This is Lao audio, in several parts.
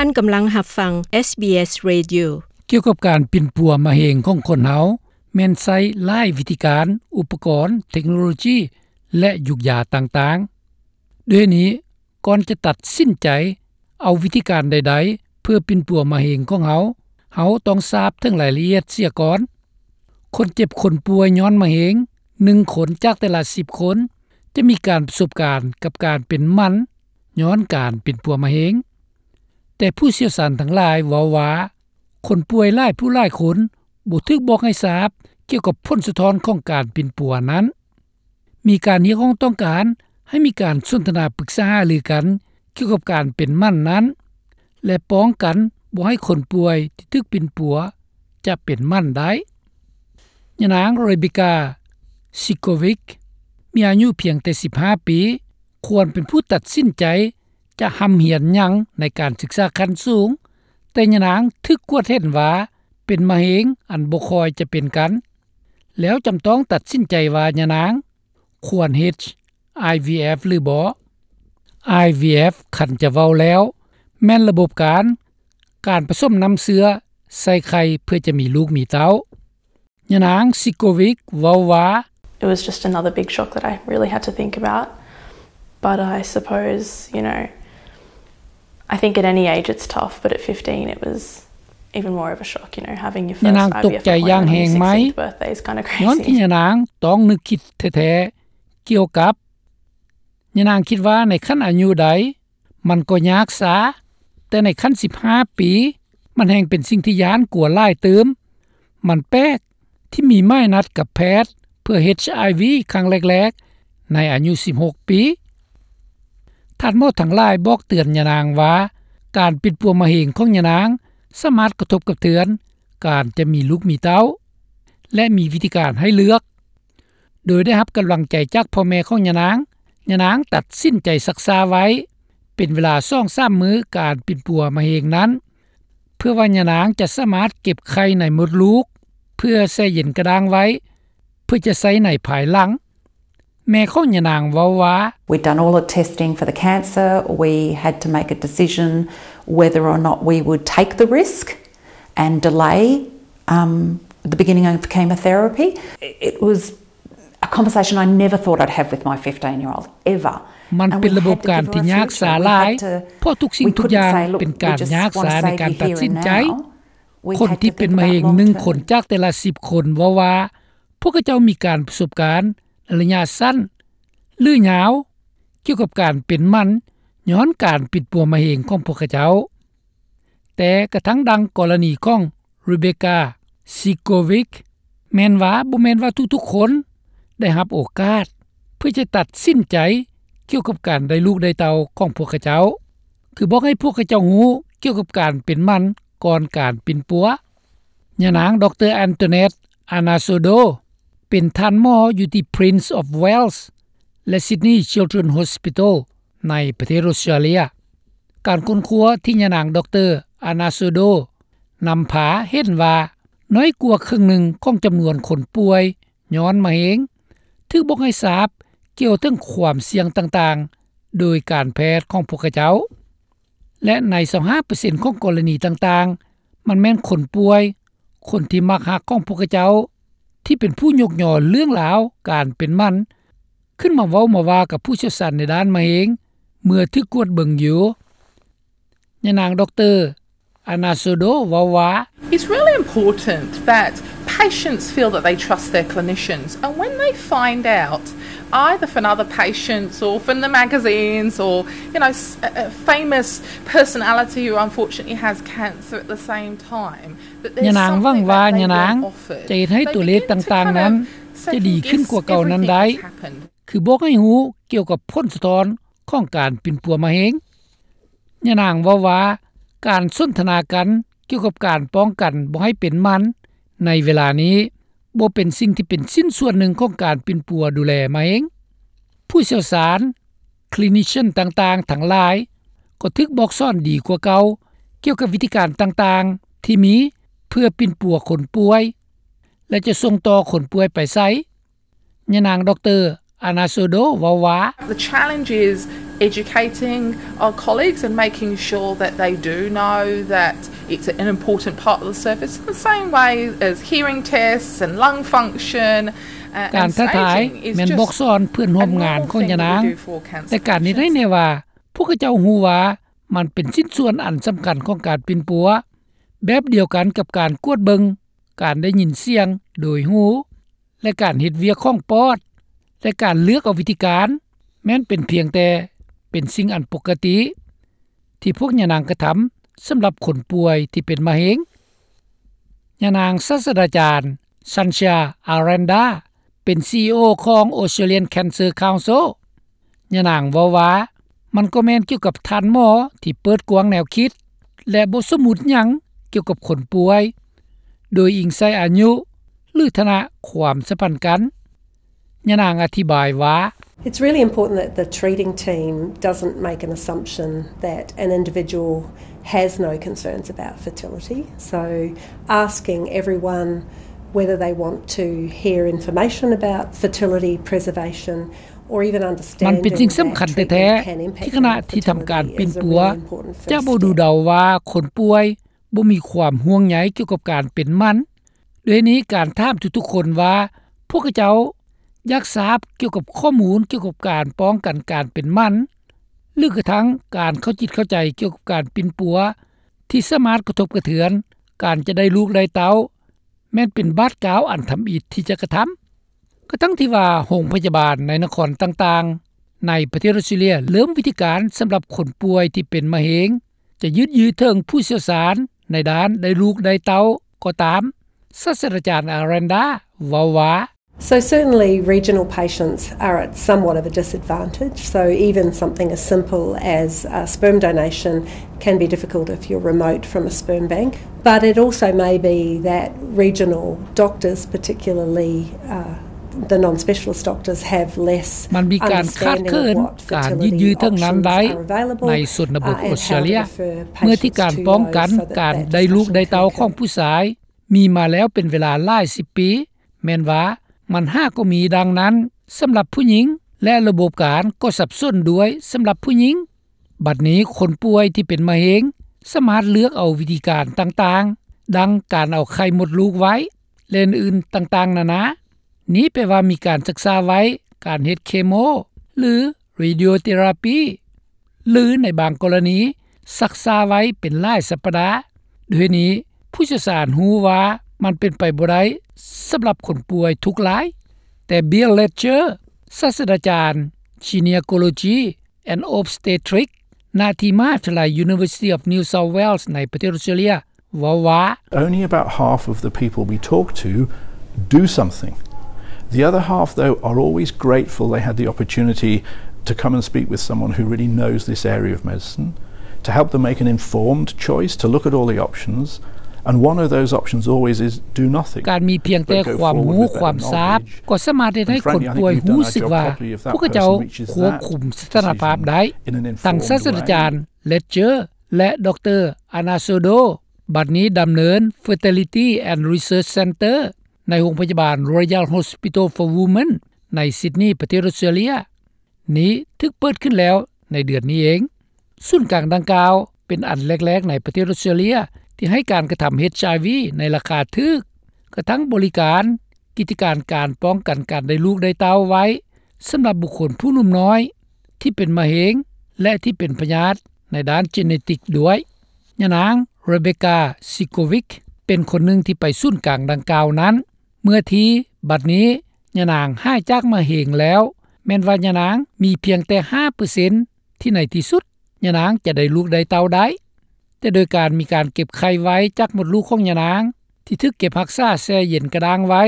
ທ່ານກຳລັງຮັບຟັງ ເອສບີເອສ Radio. ກ່ຽວກັບການປິ່ນປົວມະເຮັງຂອງຄົນເຮົາ ແມ່ນໃຊ້ຫຼາຍວິທີການ, ອຸປະກອນ, ເທັກໂນໂລຈີ ແລະ ຢູກຢາຕ່າງໆ. ດ້ວຍນີ້, ກ່ອນຈະຕັດສິນໃຈເອົາວິທີການໃດໆ ເພື່ອປິ່ນປົວມະເຮັງຂອງເຮົາ, ເຮົາຕ້ອງຊາບເຖິງລາຍລະອຽດເສຍກ່ອນ. ຄົນເຈັບຄົນປ່ວຍຍ້ອນມະເຮັງ ໜຶ່ງຄົນຈາກແຕ່ລະສິບຄົນ ຈະມີການປະສົບການກັບການເປັນໝັ້ນຍ້ອນການປິ່ນປົວມະເຮັງ. ແຕ່ຜູ້ຊ່ຽວຊານທັງຫຼາຍເວົ້າວ່າ ຄົນປ່ວຍຫຼາຍຜູ້ຫຼາຍຄົນບໍ່ຖືກບອກໃຫ້ຊາບກ່ຽວກັບຜົນສະທ້ອນຂອງການປິ່ນປົວນັ້ນ. ມີການຮຽກຮ້ອງຕ້ອງການໃຫ້ມີການສົນທະນາປຶກສາຫາລືກັນກ່ຽວກັບການເປັນໝັ້ນນັ້ນ ແລະ ປ້ອງກັນບໍ່ໃຫ້ຄົນປ່ວຍທີ່ຖືກປິ່ນປົວຈະເປັນໝັ້ນໄດ້. ຍານາງ Rebecca Sikovic ມີອາຍຸພຽງແຕ່ສິບຫ້າປີ ຄວນເປັນຜູ້ຕັດສິນໃຈຈະຮ່ຳຮຽນຫຍັງໃນການສຶກສາຂັ້ນສູງ, ແຕ່ຍານາງຖືກກວດເຫັນວ່າເປັນມະເຮັງອັນບໍ່ຄ່ອຍຈະເປັນກັນ, ແລ້ວຈຳຕ້ອງຕັດສິນໃຈວ່າຍານາງຄວນເຮັດ ໄອວີເອັຟ ຫຼືບໍ່. ໄອວີເອັຟ ຄັນຈະເວົ້າແລ້ວ ແມ່ນລະບົບການ ການປະສົມນ້ຳເຊື້ອໃສ່ໄຂ່ເພື່ອຈະມີລູກມີເຕົ້າ. ຍານາງ Sikovic ເວົ້າວ່າ It was just another big shock that I really had to think about. But I suppose, you know, I think at any age it's tough, but at fifteen it was even more of a shock, you know, having your first ຍານາງຕົກໃຈຢ່າງແຮງໄໝ ຍ້ອນທີ່ຍານາງຕ້ອງນຶກຄິດແທ້ໆ ກ່ຽວກັບ ຍານາງຄິດວ່າໃນຂັ້ນອາຍຸໃດ ມັນກໍຍາກຊາ, ແຕ່ໃນຂັ້ນສິບຫ້າປີ ມັນແຮ່ງເປັນສິ່ງທີ່ຢ້ານກົວຫຼາຍຕື່ມ. ມັນແປກທີ່ມີໝາຍນັດກັບແພດເພື່ອ ເອັດໄອວີ ຄັ້ງແລກໆ ໃນອາຍຸສິບຫົກປີ. ທ່ານໝໍທັງຫຼາຍບອກເຕືອນຍານາງວ່າ ການປິ່ນປົວມະເຮັງຂອງຍານາງສາມາດກະທົບກະເທືອນການຈະມີລູກມີເຕົ້າ ແລະ ມີວິທີການໃຫ້ເລືອກ. ໂດຍໄດ້ຮັບກຳລັງໃຈຈາກພໍ່ແມ່ຂອງຍານາງ, ຍານາງຕັດສິນໃຈຊັກຊ້າໄວ້ເປັນເວລາສອງສາມມື້ການປິ່ນປົວມະເຮັງນັ້ນ ເພື່ອວ່າຍານາງຈະສາມາດເກັບໄຂ່ໃນມົດລູກ ເພື່ອແຊ່ເຢັນກະດ້າງໄວ້ ເພື່ອຈະໃຊ້ໃນພາຍຫຼັງ. ແມ່ຂອງຍານາງເວົ້າວ່າ We'd done all the testing for the cancer. We had to make a decision whether or not we would take the risk and delay, um, the beginning of chemotherapy. It was a conversation I never thought I'd have with my fifteen-year-old, ever. ມັນເປັນລະບົບການທີ່ຍາກຊາຫຼາຍ ເພາະທຸກສິ່ງທຸກຢ່າງເປັນການຍາກຊາໃນການຕັດສິນໃຈ. ຄົນທີ່ເປັນມະເຮັງໜຶ່ງຄົນຈາກແຕ່ລະສິບຄົນເວົ້າວ່າ ພວກເຂົາເຈົ້າມີການປະສົບການໃນໄລຍະສັ້ນ ຫຼື ຍາວ ກ່ຽວກັບການເປັນໝັ້ນຍ້ອນການປິ່ນປົວມະເຮັງຂອງພວກເຂົາເຈົ້າ. ແຕ່ກະທັ່ງດັ່ງກໍລະນີຂອງ Rebecca Sikovic ແມ່ນວ່າບໍ່ແມ່ນວ່າທຸກໆຄົນໄດ້ຮັບໂອກາດເພື່ອຈະຕັດສິນໃຈກ່ຽວກັບການໄດ້ລູກໄດ້ເຕົ້າຂອງພວກເຂົາເຈົ້າ, ຄືບອກໃຫ້ພວກເຂົາເຈົ້າຮູ້ກ່ຽວກັບການເປັນໝັ້ນກ່ອນການປິ່ນປົວ. ຍານາງ ດຣ Antoinette Anasodo ເປັນທ່ານໝໍຢູ່ທີ່ Prince of Wales ແລະ Sydney Children's Hospital ໃນປະເທດອົດສະຕຣາເລຍ. ການຄົ້ນຄວ້າທີ່ຍານາງ ດຣ Anasodo ນຳພາເຫັນວ່າ ນ້ອຍກວ່າເຄິ່ງໜຶ່ງຂອງຈຳນວນຄົນປ່ວຍຍ້ອນມະເຮັງ ຖືກບອກໃຫ້ຊາບກ່ຽວເຖິງຄວາມສ່ຽງຕ່າງໆ ໂດຍການແພດຂອງພວກເຂົາເຈົ້າ. ແລະ ໃນຊາວຫ້າເປີເຊັນຂອງກໍລະນີຕ່າງໆ ມັນແມ່ນຄົນປ່ວຍ, ຄົນທີ່ມັກຮັກຂອງພວກເຂົາເຈົ້າ ທີ່ເປັນຜູ້ຍົກຍໍເລື່ອງລາວການເປັນໝັ້ນ ຂຶ້ນມາເວົ້າມາວ່າກັບຜູ້ຊ່ຽວຊານໃນດ້ານມະເຮັງ ເມື່ອຖືກກວດເບິ່ງຢູ່. ຍານາງ ດຣ Anasodo ເວົ້າວ່າ It's really important that patients feel that they trust their clinicians, and when they find out, either from other patients or from the magazines or, you know, s- a a famous personality who unfortunately has cancer at the same time, that there's ຍານາງຫວັງວ່າຍານາງຈະເຮັດໃຫ້ຕົວເລກຕ່າງໆນັ້ນຈະດີຂຶ້ນກວ່າເກົ່ານັ້ນໄດ້ ຄືບອກໃຫ້ຮູ້ກ່ຽວກັບຜົນສະທ້ອນຂອງການປິ່ນປົວມະເຮັງ. ຍານາງເວົ້າວ່າ ການສົນທະນາກັນກ່ຽວກັບການປ້ອງກັນບໍ່ໃຫ້ເປັນໝັ້ນໃນເວລານີ້ ບໍ່ເປັນສິ່ງທີ່ເປັນຊິ້ນສ່ວນໜຶ່ງຂອງການປິ່ນປົວດູແລມະເຮັງ. ຜູ້ຊ່ຽວຊານ, ຄລີນິເຊັນຕ່າງໆທັງຫຼາຍ ກໍຖືກບອກສອນດີກວ່າເກົ່າ ກ່ຽວກັບວິທີການຕ່າງໆທີ່ມີເພື່ອປິ່ນປົວຄົນປ່ວຍ ແລະ ຈະສົ່ງຕໍ່ຄົນປ່ວຍໄປໃສ. ຍານາງ ດຣ Anasodo ເວົ້າວ່າ The challenge is educating our colleagues and making sure that they do know that it's an important part of the service in the same way as hearing tests and lung function. ການທ້າທາຍແມ່ນບອກສອນເພື່ອນຮ່ວມງານຂອງຍານາງ, ແຕ່ການເຮັດໃຫ້ແນ່ວ່າພວກເຂົາເຈົ້າຮູ້ວ່າມັນເປັນຊິ້ນສ່ວນອັນສຳຄັນຂອງການປິ່ນປົວ, ແບບດຽວກັນກັບການກວດເບິ່ງການໄດ້ຍິນສຽງໂດຍຫູ ແລະ ການເຮັດວຽກຂອງປອດ ແລະ ການເລືອກເອົາວິທີການ ແມ່ນເປັນພຽງແຕ່ເປັນສິ່ງອັນປົກກະຕິ ທີ່ພວກຍານາງກະທຳສຳລັບຄົນປ່ວຍທີ່ເປັນມະເຮັງ. ຍານາງສາດສະດາຈານ Sanchia Aranda ເປັນ ຊີອີໂອ ຂອງ Australian Cancer Council. ຍານາງເວົ້າວ່າ ມັນກໍແມ່ນກ່ຽວກັບທ່ານໝໍທີ່ເປີດກວ້າງແນວຄິດ ແລະ ບໍ່ສົມມຸດຫຍັງກ່ຽວກັບຄົນປ່ວຍ ໂດຍອີງໃສ່ອາຍຸ ຫຼື ຖານະຄວາມສຳພັນກັນ. ຍານາງອະທິບາຍວ່າ It's really important that the treating team doesn't make an assumption that an individual has no concerns about fertility. So asking everyone whether they want to hear information about fertility preservation or even understanding ມັນເປັນສິ່ງສຳຄັນແທ້ໆ ທີ່ຄະນະທີ່ທຳການປິ່ນປົວຈະບໍ່ດູເດົາວ່າຄົນປ່ວຍບໍ່ມີຄວາມຫ່ວງໃຍກ່ຽວກັບການເປັນໝັ້ນ. ດ້ວຍນີ້ ການຖາມທຸກໆຄົນວ່າພວກເຂົາເຈົ້າຢາກຊາບກ່ຽວກັບຂໍ້ມູນກ່ຽວກັບການປ້ອງກັນການເປັນໝັ້ນ ຫຼື ກະທັ່ງການເຂົ້າຈິດເຂົ້າໃຈກ່ຽວກັບການປິ່ນປົວ ທີ່ສາມາດກະທົບກະເທືອນການຈະໄດ້ລູກໄດ້ເຕົ້າ ແມ່ນເປັນບາດກ້າວອັນທຳອິດທີ່ຈະກະທຳ. ກະທັ່ງທີ່ວ່າໂຮງພະຍາບານໃນນະຄອນຕ່າງໆໃນປະເທດອອສເຕຣເລັຍເລີ່ມວິທີການສຳລັບຄົນປ່ວຍທີ່ເປັນມະເຮັງ ຈະຍືດເຖິງຜູ້ຊ່ຽວຊານໃນດ້ານໄດ້ລູກໄດ້ເຕົ້າກໍຕາມ, ສາດສະດາຈານ Aranda ເວົ້າວ່າ So certainly regional patients are at somewhat of a disadvantage. So even something as simple as, uh, sperm donation can be difficult if you're remote from a sperm bank. But it also may be that regional doctors, particularly, uh, the non-specialist doctors, have less ມັນມີການຂາດເຂີນການຍືດເຖິງນັ້ນໄດ້ໃນຊົນນະບົດອອສເຕຣເລັຍ ເມື່ອທີ່ການປ້ອງກັນການໄດ້ລູກໄດ້ເຕົ້າຂອງຜູ້ຊາຍ ມີມາແລ້ວເປັນເວລາຫຼາຍສິບປີ ແມ່ນວ່າມັນຫາກໍມີດັ່ງນັ້ນສຳລັບຜູ້ຍິງ ແລະ ລະບົບການກໍສັບສົນດ້ວຍສຳລັບຜູ້ຍິງ. ບັດນີ້ຄົນປ່ວຍທີ່ເປັນມະເຮັງສາມາດເລືອກເອົາວິທີການຕ່າງໆ ດັ່ງການເອົາໄຂ່ມົດລູກໄວ້ ແລະ ອື່ນໆຕ່າງໆນານາ. ນີ້ແປວ່າມີການສຶກສາໄວ້ການເຮັດເຄໂມ ຫຼື radiotherapy ຫຼື ໃນບາງກໍລະນີຊັກຊ້າໄວ້ເປັນຫຼາຍສັບປະດາ. ດ້ວຍນີ້ ຜູ້ຊ່ຽວຊານຮູ້ວ່າມັນເປັນໄປບໍ່ໄດ້ສຳລັບຄົນປ່ວຍທຸກລາຍ. ແຕ່ Bill Ledger ສາດສະດາຈານ Gynecology and Obstetrics ນະທີ່ມະຫາວິທະຍາໄລ University of New South Wales ໃນປະເທດອອສເຕຣເລັຍ ເວົ້າວ່າ Only about half of the people we talk to do something. The other half, though, are always grateful they had the opportunity to come and speak with someone who really knows this area of medicine, to help them make an informed choice, to look at all the options, and one of those options always is do nothing. ການມີພຽງແຕ່ຄວາມຮູ້ຄວາມຊາບ ກໍສາມາດເຮັດໃຫ້ຄົນປ່ວຍຮູ້ສຶກວ່າພວກເຂົາເຈົ້າຄວບຄຸມສະຖານະພາບໄດ້. ທັງສາດສະດາຈານ Ledger ແລະ ດຣ Arnaldo ບັດນີ້ດຳເນີນ Fertility and Research Center ໃນໂຮງພະຍາບານ Royal Hospital for Women ໃນ Sydney ປະເທດອອສເຕຣເລັຍ. ນີ້ຖືກເປີດຂຶ້ນແລ້ວໃນເດືອນນີ້ເອງ. ສູນກາງດັ່ງກ່າວເປັນອັນແລກໆໃນປະເທດອອສເຕຣເລັຍທີ່ໃຫ້ການກະທຳ HIV ໃນລາຄາຖືກ, ກະທັ່ງບໍລິການກິດຈະການການປ້ອງກັນການໄດ້ລູກໄດ້ເຕົ້າໄວ້ສຳລັບບຸກຄົນຜູ້ໜຸ່ມນ້ອຍທີ່ເປັນມະເຮັງ ແລະ ທີ່ເປັນພະຍາດໃນດ້ານ genetic ດ້ວຍ. ຍານາງ Rebecca Sikovic ເປັນຄົນໜຶ່ງທີ່ໄປສູນກາງດັ່ງກ່າວນັ້ນເມື່ອທີ່ບັດນີ້ຍານາງຫາຍຈາກມະເຮັງແລ້ວ, ແມ່ນວ່າຍານາງມີພຽງແຕ່ຫ້າເປີເຊັນ ທີ່ໃນທີ່ສຸດຍານາງຈະໄດ້ລູກໄດ້ເຕົ້າໄດ້, ແຕ່ໂດຍການມີການເກັບໄຂ່ໄວ້ຈາກມົດລູກຂອງຍານາງ ທີ່ຖືກເກັບຮັກສາແຊ່ເຢັນກະດ້າງໄວ້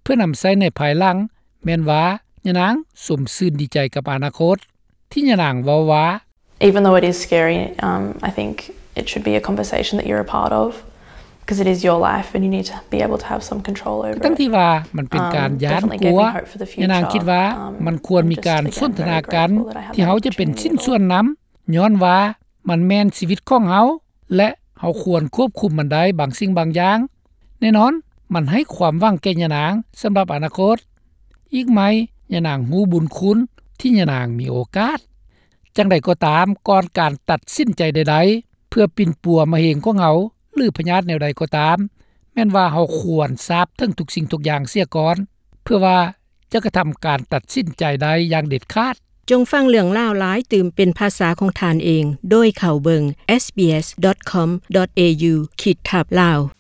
ເພື່ອນຳໃຊ້ໃນພາຍຫຼັງ, ແມ່ນວ່າຍານາງຊົມຊື່ນດີໃຈກັບອະນາຄົດ, ທີ່ຍານາງເວົ້າວ່າ Even though it is scary, um, I think it should be a conversation that you're a part of, 'cause it is your life and you need to be able to have some control over it. ທັງທີ່ວ່າມັນເປັນການຢ້ານກົວ, ຍານາງຄິດວ່າມັນຄວນມີການສົນທະນາກັນ ທີ່ເຮົາຈະເປັນຊິ້ນສ່ວນນຳ, ຍ້ອນວ່າມັນແມ່ນຊີວິດຂອງເຮົາ ແລະ ເຮົາຄວນຄວບຄຸມມັນໄດ້ບາງສິ່ງບາງຢ່າງ. ແນ່ນອນ, ມັນໃຫ້ຄວາມຫວັງແກ່ຍານາງສຳລັບອະນາຄົດ. ອີກໄໝ ຍານາງຮູ້ບຸນຄຸນທີ່ຍານາງມີໂອກາດ. ຢ່າງໃດກໍຕາມ, ກ່ອນການຕັດສິນໃຈໃດໆ ເພື່ອປິ່ນປົວມະເຮັງຂອງເຮົາ ຫຼື ພະຍາດແນວໃດກໍຕາມ, ແມ່ນວ່າເຮົາຄວນຊາບເຖິງທຸກສິ່ງທຸກຢ່າງເສຍກ່ອນ ເພື່ອວ່າຈະກະທຳການຕັດສິນໃຈໄດ້ຢ່າງເດັດຂາດ. ຈົ່ງຟັງເລື່ອງລາວຫຼາຍຕື່ມເປັນພາສາຂອງທ່ານເອງ ໂດຍເຂົ້າເບິ່ງ sbs.com.au/lawresearch.